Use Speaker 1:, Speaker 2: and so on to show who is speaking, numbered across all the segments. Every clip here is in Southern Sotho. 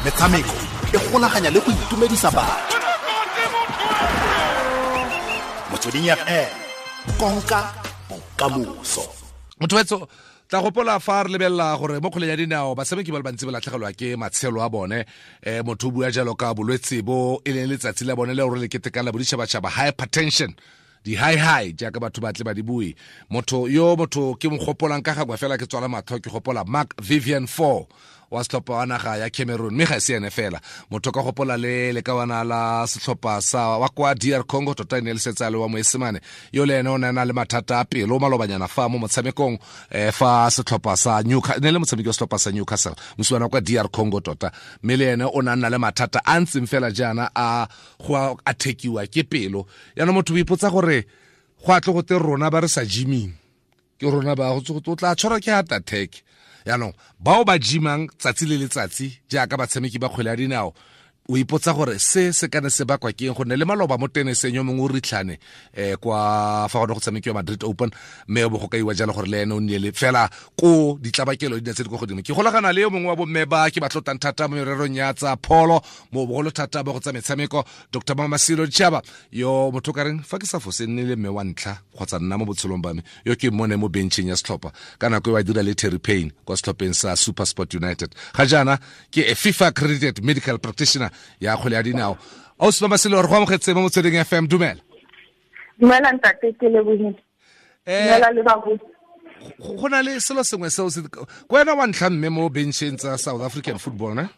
Speaker 1: Metshameko e golaganya le go itumedisa batho. Motsweding FM, konka bokamoso.
Speaker 2: Motho tla gopola fa re lebelela gore mo kgweleng ya dinao batshameki ba le bantsi ba latlhegelwa ke matshelo a bone. Motho o bua jalo ka bolwetse bo e leng letsatsi la bone le gore le ketekang la boditšhabatšhaba, hypertension, di-high high jaaka batho ba tle ba di bue. Motho yo motho ke mo gopolang ka gangwe fela ke tswala matlho, ke gopola Mark Vivian Foe wa setlhopha wa naga ya Cameroon, mme ga e se ene fela. Motho ka gopola le lekawana la setlhopha sa wa kwa DR Congo, tota e ne le setse a le wa Moesemane, yo le ene o ne a na le mathata a pelo malobanyana fa mo motshamekong, fa setlhopha sa Newcastle, ne le motshameki wa setlhopha sa Newcastle, mosimane wa kwa DR Congo tota, mme le ene o ne a nna le mathata a ntseng fela jaana a go a thekiwa ke pelo. Yaanong motho o ipotsa gore go a tle go te rona ba re sa gyming ke rona ba go o tla tshwarwa ke heart attack. Yaanong bao ba gymang tsatsi le letsatsi jaaka batshameki ba kgwele ya dinao, o ipotsa gore se se kana se bakwa ke eng, gonne le maloba mo teneseng yo mongwe o ritlhane kwa fa gone go tshamekiwa Madrid Open, mme o bo go kaiwa jalo gore le ene o nnile fela ko ditlabakelo di ne tse di kwa godimo. Ke golagana le yo mongwe wa bomme ba ke ba tlotlang thata mo mererong ya tsa pholo, mo bogolo thata ba go tsa metshameko, Dr Mamasilo Chaba, yo motho ka reng fa ke sa fose nne le mme wa ntlha kgotsa nna mo botshelong ba me yo ke mmone mo bencheng ya setlhopha ka nako e wa dira le Terry Payne kwa setlhopheng sa SuperSport United. Ga jaana ke a FIFA accredited medical practitioner ya kgwele ya dinao. Ausi Mamasilo, re go amogetse mo Motsweding FM, dumela.
Speaker 3: Dumela ntate, ke lebohile. Dumela le babusi.
Speaker 2: Go na le selo sengwe seo se ko wena wa ntlha mme mo bencheng tsa South African football, ne?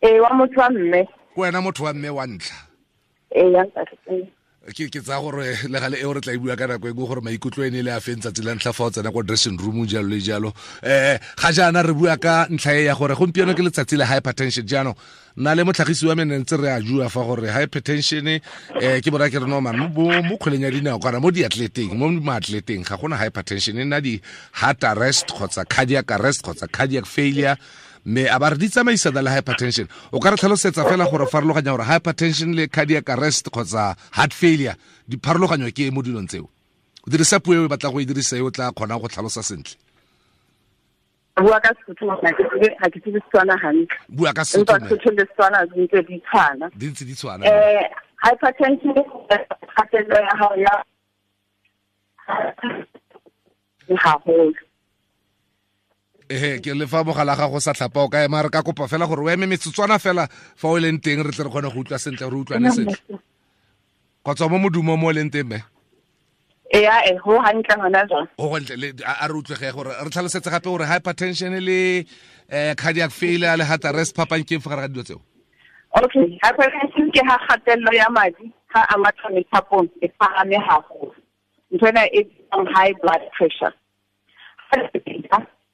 Speaker 3: Ee, wa motho wa mme.
Speaker 2: Ko wena motho wa mme wa ntlha.
Speaker 3: Ee, ya ntate.
Speaker 2: Ke tsaya gore le gale eo re tla e bua ka nako e nngwe gore maikutlo e ne le a feng tsatsi la ntlha fa o tsena ko dressing room jalo le jalo. Ga jaana re bua ka ntlha e ya gore gompieno ke letsatsi la hypertension. Jaanong nna le motlhagisi wa me ne ntse re a jua fa gore hypertension ke bona ke re no man mo kgweleng ya dinao kana mo diatleteng, mo maatleteng ga gona hypertension, e nna di heart arrest kgotsa cardiac arrest kgotsa cardiac failure, mme a ba re di tsamaisana le hypertension. O ka re tlhalosetsa fela gore farologanya gore hypertension le cardiac arrest kgotsa heart failure di pharologanyo ke mo dilong tseo? O dirisa puo e o batlang go e dirisa e o tla kgonang go tlhalosa sentle.
Speaker 3: Bua ka Sesotho, ga ke tsebe Setswana hantle.
Speaker 2: Bua ka Sesotho.
Speaker 3: Empa Sesotho le Setswana di ntse di tshwana.
Speaker 2: Di ntse di tshwana.
Speaker 3: Hypertension kgatello ya hao ya haholo.
Speaker 2: Ke le fa mogala ga go sa tlhapa o ka ema, re ka kopa fela gore o eme metsotswana fela fa o leng teng re tle re kgone go utlwa sentle, re utlwane sentle. Kgotsa mo modumo mo o leng teng, mme?
Speaker 3: Ee, go hantle hona jwang.
Speaker 2: Go hantle, le a re utlwege gore re tlhalosetse gape gore hypertension le cardiac failure le heart arrest phapang ke eng fa gare ga dilo tseo?
Speaker 3: Okay, hypertension ke ha kgatello ya madi ha a matha methapong e phahame haholo. Ntho ena e bitswang high blood pressure.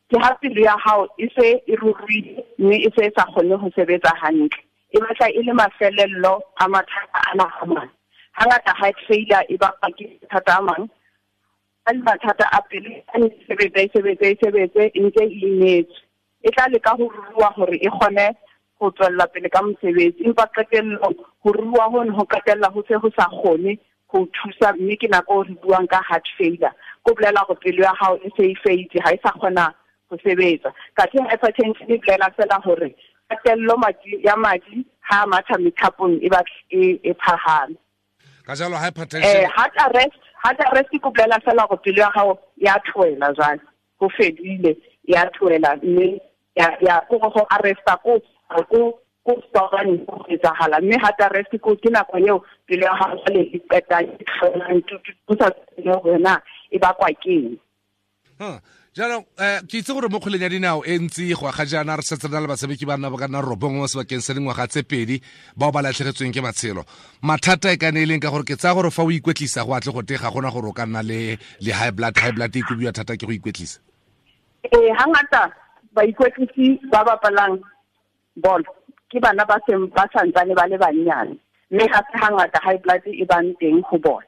Speaker 3: Ke ha pelo ya hao e se e ruruhile mme e se e sa kgone ho sebetsa hantle. E batla e le mafelello a mathata ana a mang. Hangata heart failure e bakwa ke mathata a mang. A le mathata a pelo a ne sebetsa, e sebetse, e sebetse, e ntse e imetswe. E tla leka ho ruruha hore e kgone ho tswella pele ka mosebetsi, empa qetellong ho ruruha hono ho qetella ho se ho sa kgone ho thusa, mme ke nako re buang ka heart failure. Ko bolela hore pelo ya hao e se e feitse, ha e sa kgona ho sebetsa. Kathe hypertension e bolela fela hore kgatello ya madi ha a matha methapong e batla e phahame.
Speaker 2: Ka jalo hypertension
Speaker 3: Heart arrest ke bolela fela hore pelo ya hao ya tlohela jwale, ho fedile, ya tlohela, mme ya ko go arresta ko ko ko stopane go etsahala, mme heart arrest ko ke nako eo pelo ya hao jwale e qeta e tlohelang, ho sa tsebe hore na e bakwa ke eng.
Speaker 2: Jaanong ke itse gore mo kgweleng ya dinao e ntsi go aga jaana re setse re na le batshameki ba nna ba ka nna 9 mo sebakeng sa dingwaga tse 2 bao ba latlhegetsweng ke matshelo. Mathata e ka ne e leng ka gore ke tsaya gore fa o ikwetlisa go atle go te ga gona gore o ka nna le high blood, high blood e kobiwa thata ke go ikwetlisa.
Speaker 3: Ee, hangata baikwetlisi ba bapalang bolo ke bana ba seng ba santsane ba le bannyane, mme ga se hangata high blood e bang teng ho bona.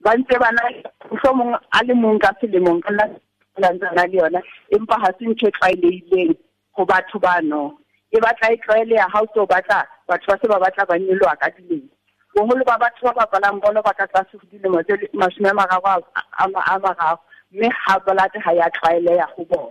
Speaker 3: Ba ntse ba na mohlomong a le mong ka selemong ka nna na le yona, empa ha se ntho e tlwaelehileng ho batho bano. E batla e tlwaeleha ha o tlo batla batho ba se ba batla ba nyoloha ka dilemo. Boholo ba batho ba bapalang bolo ba ka tlase ho dilemo tse 30, mme ha blood ha ya tlwaeleha ho bona.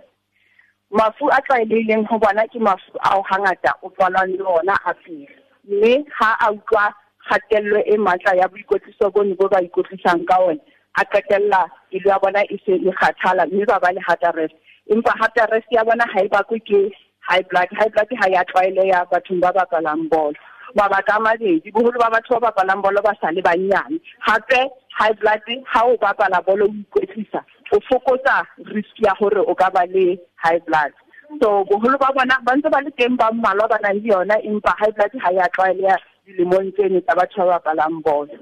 Speaker 3: Mafu a tlwaelehileng ho bona ke mafu ao hangata o tswalwang le ona a pele, mme ha a utlwa kgatello e matla ya boikwetliso bono bo ba ikwetlisang ka ona, a qetella pelo ya bona e se e kgathala mme ba ba le heart arrest. Empa heart arrest ya bona ha e bakwe ke high blood. High blood ha ya tlwaeleha bathong ba bapalang bolo. Mabaka a mabedi, boholo ba batho ba bapalang bolo ba sa le banyane. Hape high blood ha o bapala bolo o ikwetlisa, o fokotsa risk ya hore o ka ba le high blood. So boholo ba bona ba ntse ba le teng ba mmalwa ba nang le yona, empa high blood ha ya tlwaeleha dilemong tseno tsa batho ba bapalang bolo.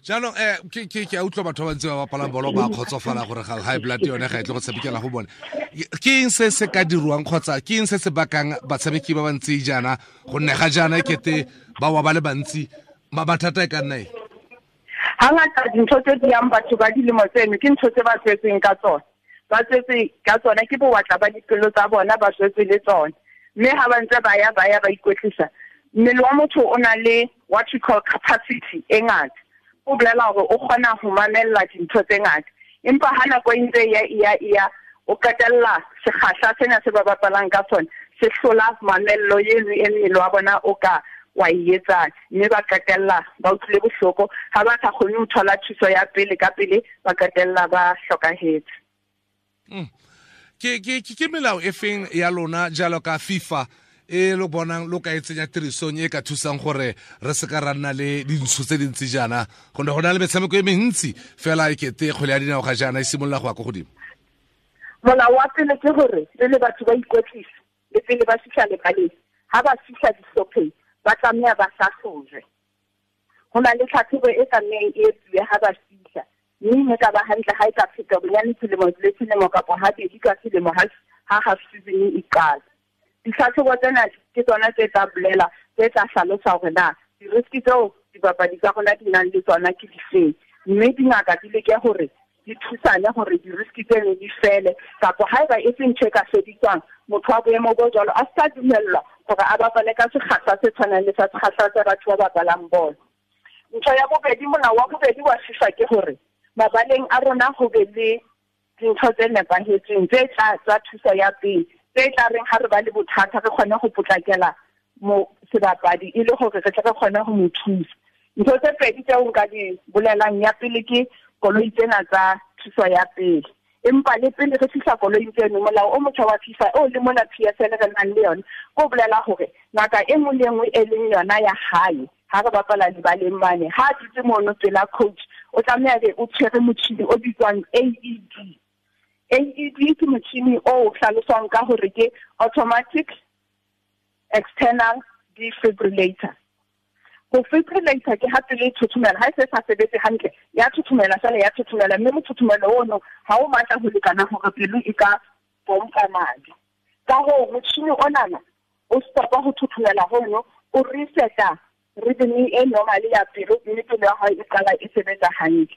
Speaker 2: Jaanong ke a utlwa batho ba bantsi ba bapalang bolo ba kgotsofala gore ga high blood yone ga e tle go tshamekela go bone. Ke eng se se ka dirwang kgotsa ke eng se se bakang batshameki ba bantsi jaana gonne ga jaana e kete ba wa ba le bantsi, mathata e ka nna eng?
Speaker 3: Hangata dintho tse di yang batho ba dilemo tseno ke ntho tse ba tswetseng ka tsona. Ba tswetse ka tsona ke bowatla ba dipelo tsa bona, ba tswetse le tsona. Mme ha ba ntse ba ya ba ya ba ikwetlisa, mmele wa motho o na le what we call capacity e ngata. O bolela hore o kgona ho mamella dintho tse ngata, empa ha nako e ntse e ya e ya, o qetella sekgahla sena se ba bapalang ka sona se hlola mamello eno e mmele wa bona o ka wa e etsang, mme ba qetella ba utlwile bohloko. Ha ba sa kgone ho thola thuso ya pele ka pele, ba qetella ba hlokahetse.
Speaker 2: Ke melao e feng ya lona jalo ka FIFA e lo bonang lo ka e tsenya tirisong e ka thusang gore re se ka ra nna le dintsho tse dintsi jaana, gonne go na le metshameko e mentsi fela e kete kgwele ya dinao ga jaana e simolola go ya ko godimo?
Speaker 3: Molao wa pele ke gore pele batho ba ikwetlisa le pele ba fihla lebaleng, ha ba fihla dihlopheng ba tlameha ba hlahlojwe. Ho na le tlhatlhobo e tlamehang e etsuwe ha ba fihla, mme e ka ba hantle ha e ka feta bonyane selemo le selemo kapa habedi ka selemo ha half season e qala. Ditlhatlhobo tsena ke tsona tse tla bolela, tse tla hlalosa hore na di-risk tseo dibapadi tsa rona di nang le tsona ke difeng, mme dingaka di leke hore di thusane hore di-risk tseno di fele, kapa haeba e se ntho e ka fediswang, motho wa boemo bo jwalo a sa dumellwa hore a bapale ka sekgahla se tshwanang le sa sekgahla sa batho ba bapalang bolo. Ntho ya bobedi, molao wa bobedi wa FIFA ke hore mabaleng a rona ho be le dintho tse nepahetseng tse tla tsa thuso ya pele, tse tla reng ha re ba le bothata re kgone ho potlakela mo sebapadi e le hore re tle re kgone ho mo thusa. Ntho tse pedi tseo nka di bolelang, ya pele ke koloi tsena tsa thuso ya pele. Empa le pele re fihla koloing tseno, molao o motjha wa FIFA o le mona PSL re nang le yona, o bolela hore ngaka e nngwe le e nngwe e leng yona ya hae ha re bapala lebaleng mane, ha a dutse mono pela coach, o tlameha be o tshwere motjhini o bitswang AED. AED ke motjhini o hlaloswang ka hore ke automatic external defibrillator. Ho fibrillator ke ha pele e thothomela, ha e se sa sebetse hantle, ya thothomela fela, ya thothomela, mme mothothomelo ono ha o matla ho lekana hore pelo e ka pompa madi. Ka hoo motjhini onana o stopa ho thothomela hono, o reseta rhythm e normal ya pelo, mme pelo ya hao e qala e sebetsa hantle.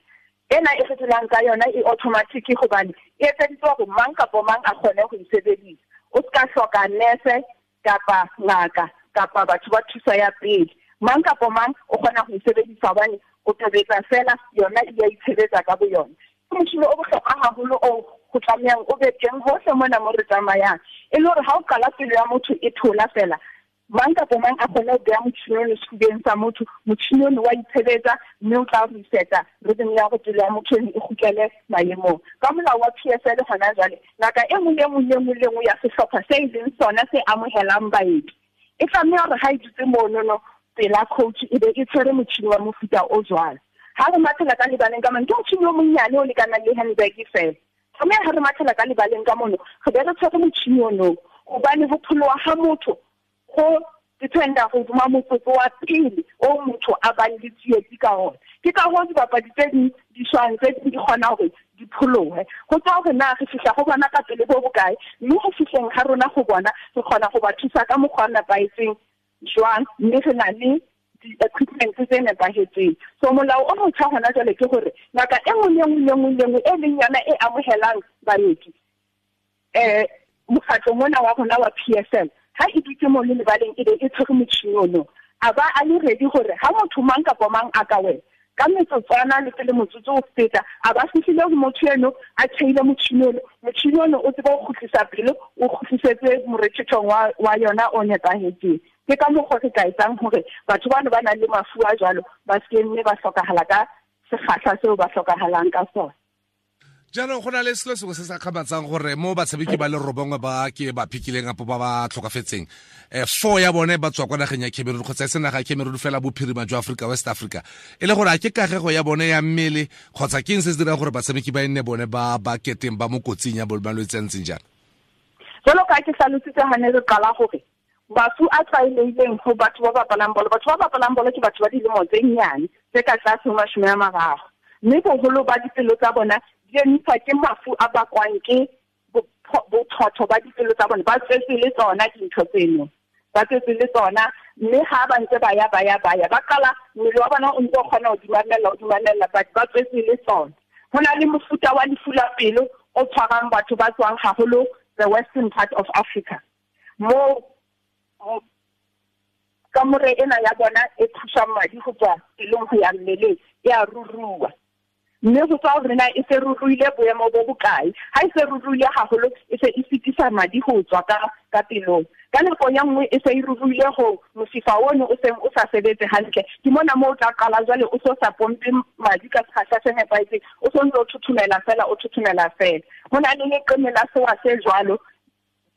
Speaker 3: Ena e re dulang ka yona e automatic hobane e etseditswe hore mang kapa mang a kgone ho e sebedisa. O ska hloka nurse kapa ngaka kapa batho ba thuso ya pele. Mang kapa mang o kgona ho e sebedisa hobane o tobetsa fela, yona e a itshebetsa ka boyona. Ke motjhini o bohlokwa haholo o ho tlamehang o be teng hohle mona mo re tsamayang, e le hore ha o qala pelo ya motho e thola fela, mang kapa mang a kgone ho beha motjhini ono sefubeng sa motho, motjhini ono wa itshebetsa mme o tla reseta rhythm ya hore pelo ya motho eno e kgutlele maemong. Ka molao wa PSL hona jwale, ngaka e nngwe le nngwe le nngwe le nngwe ya sehlopha se e leng sona se amohelang baeti, e tlameha hore ha e dutse monono pela coach e be e tshwere motjhini wa mofuta o jwalo. Ha re mathela ka lebaleng ka mane, ke motjhini o monnyane o lekanang le handbag fela. Tlameha ha re mathela ka lebaleng ka mono, re be re tshwere motjhini ono, hobane ho pholoha ha motho go dependa hodima motsotso wa pele o motho a bang le tsietsi ka ona. Ke ka hoo dibapadi tse ding di shwang, tse ding di kgona hore di pholohe. Ho tswa hore na re fihla ho bona ka pele bo bokae, mme ho fihleng ha rona ho bona re kgona ho ba thusa ka mokgwa o nepahetseng jwang, mme re na le di-equipment tse nepahetseng. So molao o motjha hona jwale ke hore ngaka e nngwe le nngwe le nngwe le nngwe e leng yona e amohelang baeti, mokgatlo mona wa rona wa PSL, ha e dutse mono lebaleng e be e tshwere motjhini ono, a ba a le ready hore ha motho mang kapa mang a ka wela Ka metsotswana le pele motsotso o feta, a ba fihlile ho motho eno a tjheile motjhini ono, motjhini ono o tsebe ho kgutlisa pelo, o kgutlisetse morethethong wa yona o nepahetseng. Ke ka mokgwa re ka etsang hore batho bano ba nang le mafu a jwalo ba se ke mme ba hlokahala ka sekgahla seo ba hlokahalang ka sona.
Speaker 2: Jaanong go na le selo sengwe se sa kgamatsang gore mo batshameki ba le 9 ba ke ba phikileng apo ba ba tlhokafetseng, 4 ya bone ba tswa kwa nageng ya Cameroon kgotsa e se naga ya Cameroon fela, bophirima jwa Africa, West Africa, e le gore a ke kagego ya bone ya mmele kgotsa ke eng se se dirang gore batshameki ba e nne bone ba ba keteng ba mo kotsing ya malwetse a ntseng jang?
Speaker 3: Jalo ka ke hlalositse ha ne re qala gore mafu a tlwaelehileng ho batho ba bapalang bolo, batho ba bapalang bolo ke batho ba dilemo tse nnyane tse ka tlase ho 30, mme boholo ba dipelo tsa bona di emiswa ke mafu a bakwang ke bothotho ba dipelo tsa bona. Ba tswetse le tsona dintho tseno, ba tswetse le tsona, mme ha ba ntse ba ya, ba ya, ba ya, ba qala mmele wa bona o ntse o kgona ho di mamella, o di mamella, but ba tswetse le tsona. Ho na le mofuta wa lefu la pelo o tshwarang batho ba tswang haholo the western part of Africa, mo kamore ena ya bona e thusang madi go tswa pelong go ya mmeleng e a ruruwa, mme go tswa hore na e se ruruile boemo bo bokae. Ha e se ruruile haholo, e se e fetisa madi go tswa ka pelong. Ka nako ya nngwe e se e ruruile go mosifa ono o seng o sa sebetse hantle, ke mona moo o tla qala jwale o so sa pompe madi ka sekgahla se nepahetseng, o so ntse o thothomela fela, o thothomela fela. Ho na le leqeme la sewa se jwalo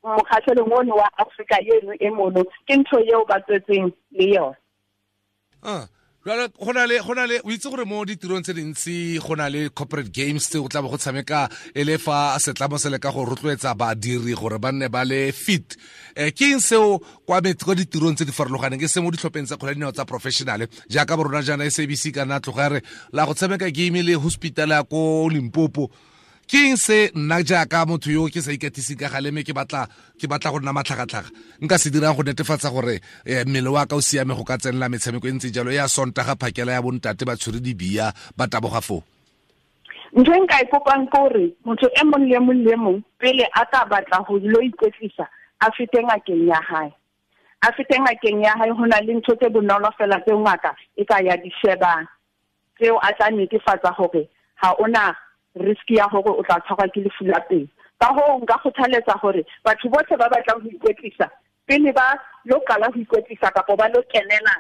Speaker 3: mokgahlelong ono wa Afrika eno e mono, ke ntho eo ba tswetseng le yona.
Speaker 2: Jwale go na le o itse gore mo ditirong tse dintsi go na le corporate games tse go tla bo go tshameka e le fa setlamo se leka go rotloetsa badiri gore ba nne ba le fit. Ke eng seo kwa ditirong tse di farologaneng, ke se mo ditlhopheng tsa kgwele ya dinao tsa professional jaaka bo rona jaana SABC ka nna tloga re la go tshameka game le hospital ya ko Limpopo? Ke eng se nna jaaka motho yo ke sa ikatiseng ka gale mme ke batla go nna matlhagatlhaga nka se dirang go netefatsa gore mmele wa ka o siame go ka tsenela metshameko e ntse jalo ya Sontaga phakela ya bontate ba tshwere dibia ba taboga foo?
Speaker 3: Ntho e nka e kopang ke hore motho e mong le mong le mong pele a ka batla ho lo ikwetlisa a fete ngakeng ya hae. A fete ngakeng ya hae, ho na le ntho tse bonolo fela tseo ngaka e ka ya di shebang, tseo a tla netefatsa hore ha ona risk ya hore o tla tshwarwa ke lefu la pelo. Ka hoo nka kgothaletsa hore batho bohle ba batlang ho ikwetlisa pele ba lo qala ho ikwetlisa kapo ba lo kenela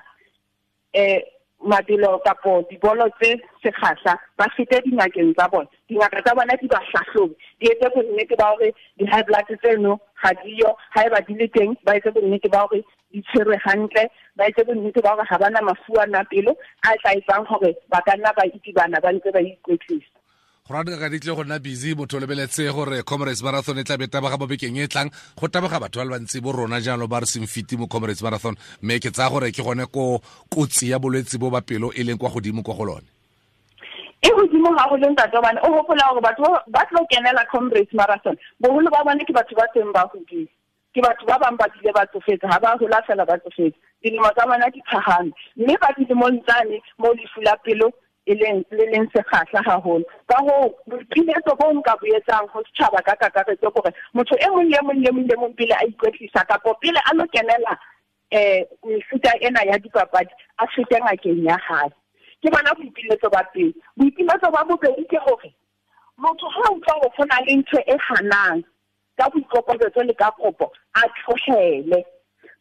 Speaker 3: mabelo kapo dibolo tse sekgahla, ba fete dingakeng tsa bona. Dingaka tsa bona di ba hlahlobe, di etse bonnete ba hore di-high blood tseno ga di yo, haeba di le teng ba etse bonnete ba hore di tshwerwe hantle, ba etse bonnete ba hore ha ba na mafu a na pelo a tla etsang hore ba ka nna ba itibana ba ntse ba ikwetlisa.
Speaker 2: Go rata ka ditle go nna busy motho o lebeletse gore Comrades Marathon e tla be taboga mo bekeng e tlang, go taboga batho ba le bantsi bo rona jalo ba re seng fiti mo Comrades Marathon, mme ke tsaya gore ke gone ko kotsi ya bolwetse bo ba pelo e leng kwa godimo kwa go lone.
Speaker 3: E godimo haholo ntate, hobane o hopola hore batho ba tlo kenela Comrades Marathon boholo ba bone ke batho ba seng ba hodile, ke batho ba bang ba bile ba tsofetse, ha ba hola fela ba tsofetse, dilemo tsa bona di phahame, mme ba dilemong tsane mo lefu la pelo e leng le leng sekgahla haholo. Ka hoo boipiletso bo nka bo etsang ho setjhaba ka kakaretso ke hore motho e mong le mong le mong le mong pele a ikwetlisa kapo pele a lo kenela mefuta ena ya dipapadi a fete ngakeng ya hae. Ke bona boipiletso ba pele. Boipiletso ba bobedi ke hore motho ha a utlwa hore ho na le ntho e hanang ka boikokobetso le ka kopo a tlohele.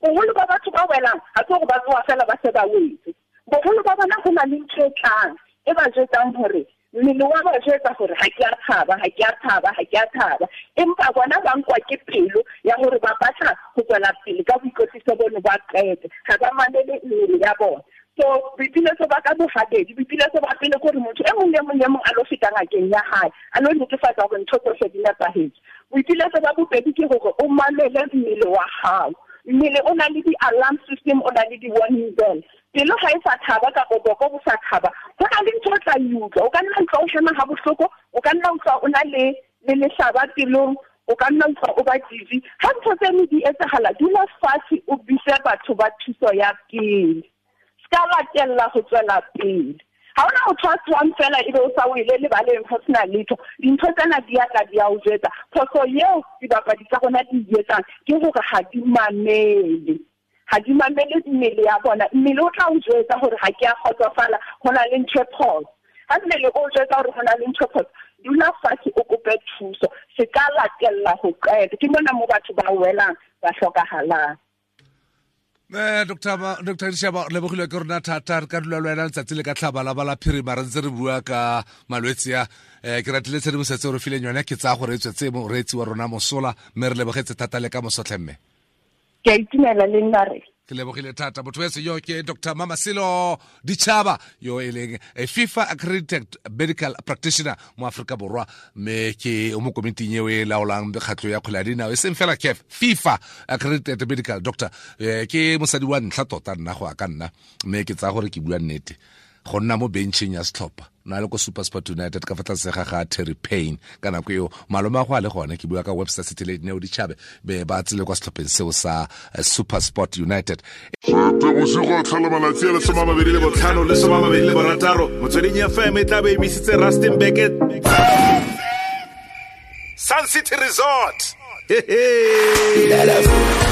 Speaker 3: Boholo ba batho ba welang ha se hore ba tsoha fela ba se ba wetse. Boholo ba bona ho na le ntho e tlang e ba jwetsang hore mmele wa ba jwetsa hore ha ke a thaba, ha ke a thaba, ha ke a thaba, empa bona ba nkwa ke pelo ya hore ba batla ho tswela pele ka boikwetliso bono ba qete, ha ba mamele mmele ya bona. So boipiletso ba ka bohabedi, boipiletso ba pele ke hore motho e mong le mong le mong a lo feta ngakeng ya hae, a lo netefatsa hore ntho tsohle di nepahetse. Boipiletso ba bobedi ke hore o mamele mmele wa hao. Mmele o na le di-alarm system, o na le di-warning bell. Pelo ha e sa thaba kapa boko bo sa thaba, ho na le ntho o tla e utlwa. O ka nna utlwa o hema ha bohloko, o ka nna utlwa o na le lehlaba pelong, o ka nna utlwa o ba dizzy. Ha ntho tseno di etsahala, dula fatshe o bitse batho ba thuso ya pele. Se ka latella ho tswela pele. Ha hona motho a tswang fela ebe o sa wele lebaleng ho sena letho. Dintho tsena di a tla di a o jwetsa. Phoso eo dibapadi tsa rona di e etsang ke hore ha di mamele. Ga di mamele mmele ya bona. Mmele o tla o jwetsa gore ga ke a kgotsofala, go na le ntho e phoso. Ha mmele o jwetsa gore go na le ntho e phoso, dula fatshe o kope thuso. Se ka latella ho qeta. Ke mona mo batho ba welang, ba hlokahalang.
Speaker 2: Dr Dishaba, re lebogilwe ke rona thata. Re ka dula le wena letsatsi le ka tlhaba la ba la phirima re ntse re bua ka malwetse a. Ke ratile tshedimosetso e re fileng yone, ke tsaya gore e tswetse moreetsi wa rona mosola, mme re lebogetse thata le ka mosotlhe mme.
Speaker 3: Ke a itumela le nna re.
Speaker 2: Ke lebogile thata. Motho wetse yo ke Dr Mamasilo Ditšhaba, yo e leng a FIFA accredited medical practitioner mo Aforika Borwa, mme ke o mo komiting eo e laolang mekgatlho ya kgwele ya dinao, e seng fela CAF, FIFA accredited medical doctor. Ke mosadi wa ntlha tota nna go ya ka nna, mme ke tsaya gore ke bua nnete, go nna mo bencheng ya setlhopha na le ko SuperSport United ka fa tlase ga ga Terry Payne ka nako eo, malome a go a le gone, ke bua ka Webster City le Neo Ditšhabe be ba tsile kwa setlhopheng seo sa SuperSport United.
Speaker 4: Bosigo tlhola malatsi a le 25 le 26, Motsweding FM e tla be emisitse Rustenburg Sun City Resort. Hey, hey.